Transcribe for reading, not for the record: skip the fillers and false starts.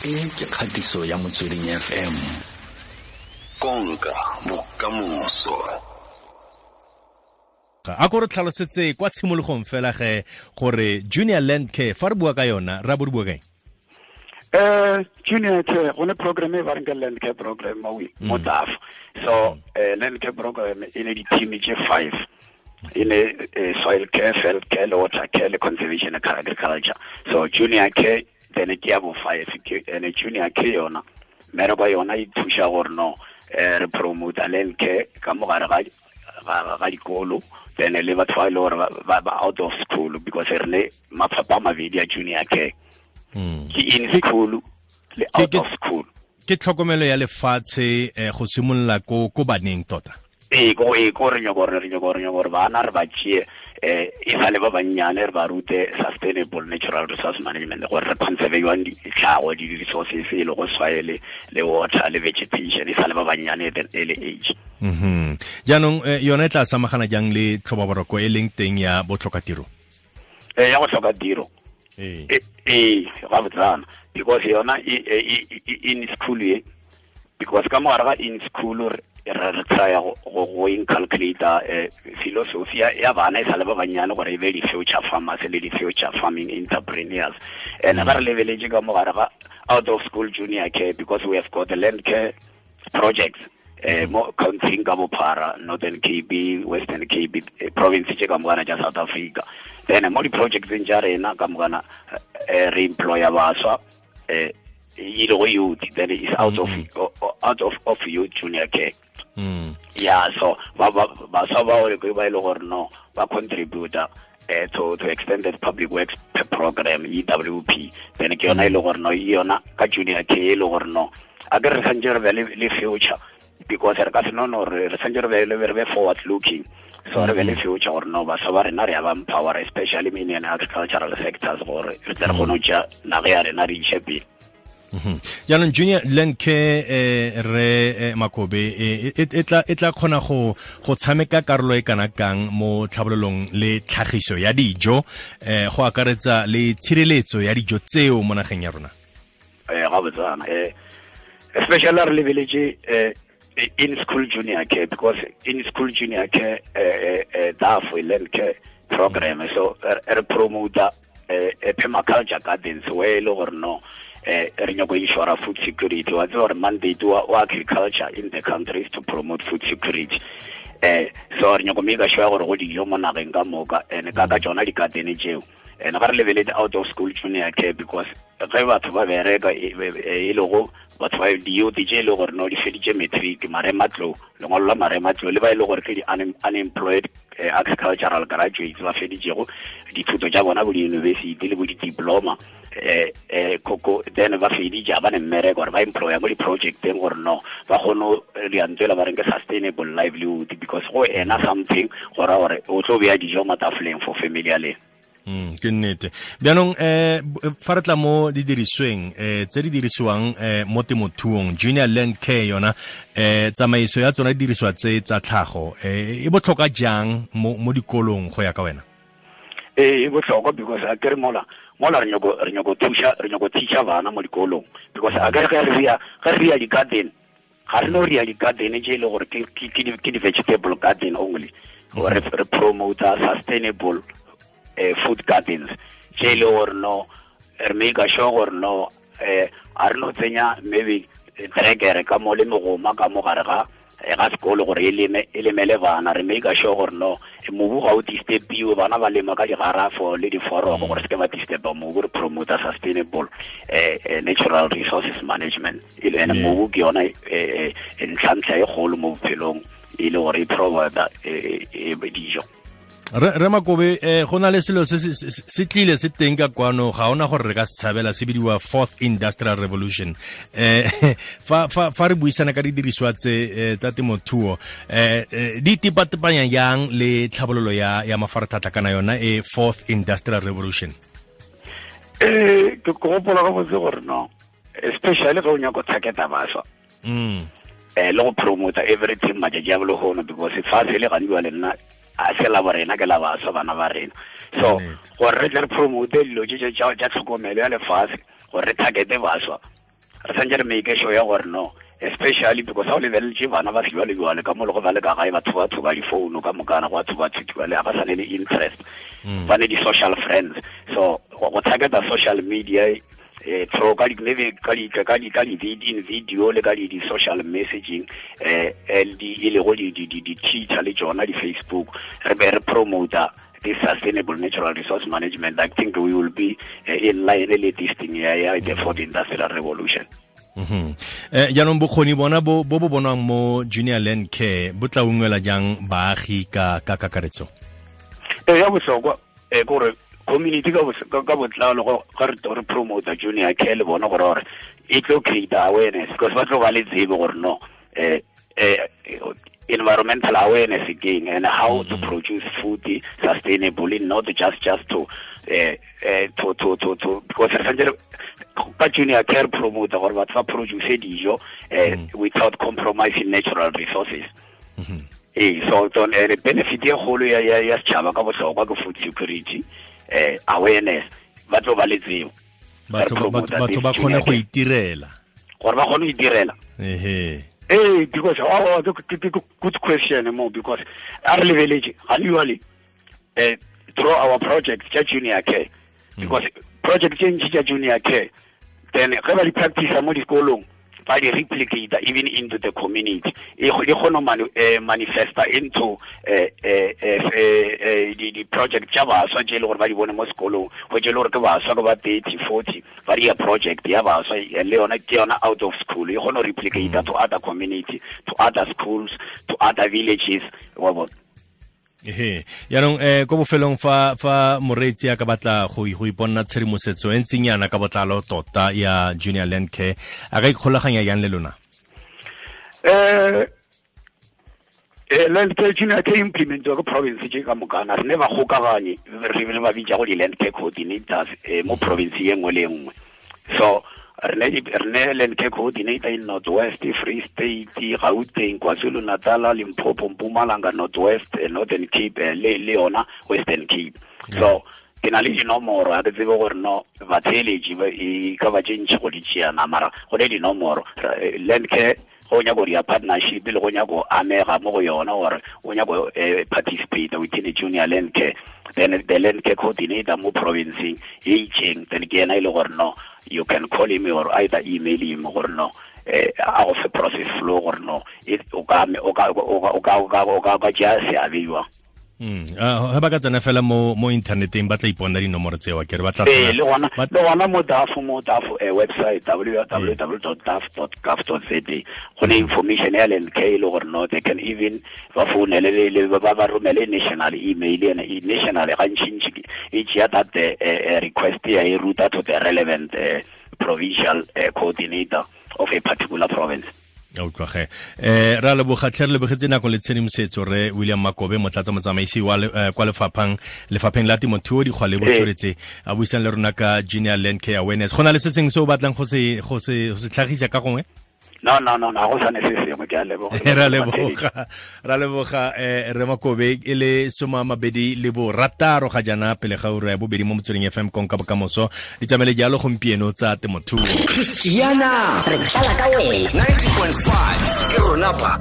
E ke kgatiso ya Motsweding FM. Konka bokamoso. A ko re tlhalosetse kwa tshimologong fela ge gore Junior Land Care fa re bua ka yona ra bo re bua kaeng? Junior Care go ne program e ba reng ke Land Care program mo mo TAF. So Land Care program e ne di-team tse 5, e ne soil care, field care, le water care, le conservation and agriculture. So Junior Care then ke ya bo 5 ke ene. Junior Care yona mmereko yona e thuša gore no re promote land care ka mogare ga dikolo, then le batho ba e le gore ba out of school, because re ne mafapha a mabedi a Junior Care, ke in school le out of school. Ke tlhokomelo ya lefatshe go simolola ko baneng tota. Ee, ko re nyako gore bana re ba tšee e sa le ba bannyane, re ba rute sustainable natural resource management, gore re conserve jwang ditlhago, di-resources e le go soil le water le vegetation, e sa le ba bannyane at an early age. Jaanong yona e tla samagana jang le tlhobaboroko e leng teng ya botlhokatiro? Ya go tlhoka tiro? Ee. Ee, ga botsana, because yona in school ye, because ka mogare ga in school re try go inculcate philosophy ya bana e sa le ba bannyane, gore e be di-future farmers le di-future farming entrepreneurs. And ga re lebeletse ka mogare ga out of school Junior Care, because we have got the land care projects mo country ka bophara, Northern Cape, Western Cape, province tse ka mokana tša South Africa. Then mo di-projectseng tša rena ka mokana re employa baswa e le go youth, then is out of youth Junior Care. Yeah, so ba baswa bao ke ba e le gore no ba contributor to extended public works program, EWP. Then ke yona e le gore no yona ka Junior Care e le gore no a ke re santse re be le future, because re ka se no re santse re be le re be forward looking. So re be le future gore no baswa ba rena re ya ba empower, especially in agricultural sectors, gore re tle re kgone go tšea naga ya rena re iše pele. Jaanong Junior Land Care, re Makobe, e tla kgona go tshameka karolo e kana kang mo tlhabololong le tlhagiso ya dijo, go akaretsa le tshireletso ya dijo tseo mo nageng ya rona? Ga botsana, especially re lebeletse in school Junior Care, because in school Junior Care DAF land care program, so re promote permaculture gardens, where e le gore no re nyako ensure food security. Wa tseba gore mandate wa agriculture in the country is to promote food security. So re nyako make sure gore go dijo mo nageng ka moka, and ka tsona di-garden tseo. And ga re lebeletse out of school Junior Care, because ge batho ba bereka e le go batho ba di-youth tse e le gore no di feditse matric, marematlou, lengwalo la marematlou, le ba e le gore ke di-unemployed agricultural graduates ba feditsego dithuto tša bona bo di-university le bo di-diploma koko, then ba feditše, ba ne mmereko, gore ba employa mo di-projecteng, gore no ba kgone go diantswela ba reng ke sustainable livelihood, because go ena something go ra gore o tlo beya dijo mo tafoleng for family ya lena. Ke nnete. Bjaanong fa re tla mo didirisweng tse di dirisiwang mo temothuong, Junior Land Care yona, tsamaiso ya tsona didiriswa tse tsa tlhago e botlhokwa jang mo dikolong go ya ka wena? Ee, e botlhokwa, because a kere mola re nyako thuša, re nyako teacha bana mo dikolong, because a kere ge re ya di-garden, ga re no re ya di-garden tše e le gore ke di-vegetable garden only. Re promote sustainable food gardens tše e le gore no re make sure gore no a re no tsenya maybe trekere ka mo le megoma ka mo gare ga sekolo gore e leme, e lemele bana. Re make sure gore no mobu ga o disturbiwe, bana ba lema ka digarafo le diforoko gore se ke ba disturba mobu. Re promote sustainable natural resources management e le ene mobu ke yona ntlhantlha e kgolo mo bophelong, e le gore e provide dijo. Re Makobe, go na le selo se tlile se teng ka kwano, ga ona gore re ka se tshabela, se bidiwa fourth industrial revolution. Fa re buisana ka didiriswa tse tsa temothuo, di tepatepanya jang le tlhabololo ya mafaratlhatlha kana yona e fourth industrial revolution? Ke gopola ga botse gore no especially ge o nyako targeta baswa le go promota everything matšatši a bolehono, because fase le gantsi wa le nna a se la borena, ke la baswa, bana ba rena. So gore re tle re promote dilo tše tša tlhokomelo ya lefase, gore re targete baswa. Re santse re make sure ya gore no, especially because ha o lebeletse bana ba sejwalejwale ka mo le go ba le ka gae, batho ba tshuba difounu ka mokana, go a tshuba-tshubiwa le ga ba sa ne le interest, ba ne di-social friends. So go targeta social media through ka di maybe ka di ka di ka di in video le ka di social messaging, di e le go di di di Twitter le tsona di Facebook, re be re promote this sustainable natural resource management. I think we will be in line with this thing ya the fourth industrial revolution. Jaanong bokgoni bona bo bo bonwang mo Junior Land Care bo tla ungwela jang baagi ka kakaretso? Ya bohlokwa gore community ka botlalo ga re promote Junior Care le bona gore e tlo create awareness, because ba tlo ba le tsebo gore no environmental awareness again and how to produce food sustainably, not just to because ka Junior Care promote gore batho ba produce dijo without compromising natural resources. So the benefit e kgolo ya setšhaba ka bohlokwa ke food security, awareness, ba tlo ba le tsebo, batho ba kgone go itirela, gore ba kgone go itirela. Because good question mo, because a re lebeletse ga le through our project tša Junior Care, because project tše ntši tša Junior Care then ge ba di practice mo dikolong, ba di replicate even into the community, e kgone manifesta into di project tša baswa tše e le gore ba di bone mo sekolong, go tše e le gore ke baswa ke ba 30 40 ba dia project ya baswa le yona ke yona out of school, e kgone go replicate to other community, to other schools, to other villages, wa bona. Jaanong ko bofelong fa moreetsi a ka batla go iponna tshedimosetso e ntseng yana ka botlalo tota ya Junior Land Care, a ka ikgolaganya yang le lona? Land Care Junior Care implementiwa ke province tše ka mokana, re ne ba kgokaganye re ba bitsa go di-land care coordinators mo province ye nngwe le nngwe. So re ne land care coordinator in North West, Free State, Gauteng, KwaZulu-Natal, Limpopo, Mpumalanga, North West, Northern Cape, le yona Western Cape. So ke na le dinomoro, ga ke tsebe gore no batheeletši e ka ba tše ntši go di tšeana, mara go ne dinomoro. Land Care go nyaka go dia partnership le go nyaka go amega mo go yona, gore o nyaka go participate within the Junior Land Care, then the land care coordinator mo provinceng e itseng, then ke yena e le gore no you can call him or either email him gore no a go fe process flow gore no o ka tšea seabe jwang. Ga ba ka tsena fela mo inthaneteng ba tla iponna dinomoro tseo, ke re ba tla le gona mo DAF website www.daf.gov.za go ne information ya Land Care e le gore no they can even ba founele le ba romele national email, ene national gantšintši e tšea that request ya e ruta to the relevant provincial coordinator of a particular province. Utlwage ra leboga tlhe, re lebogetse nako le tshedimosetso re William Makobe, motlatsa motsamaisi wa kwa lefapheng la temothuo, dikgwa le botsweretse, a buisang le rona ka Junior Land Care awareness. Go na le se sengwe se o batlang go se tlhagisa ka gongwe? No, go sa ne se sengwe, ke a leboga. Ra leboga re Makobe, e le 26 ga jana pele ga ura ya bobedi mo Motsweding FM, konka bokamoso di tsamaile jalo gompieno tsa temothuo. Christiana, re tlala ka wena 90.5 ke rona ba.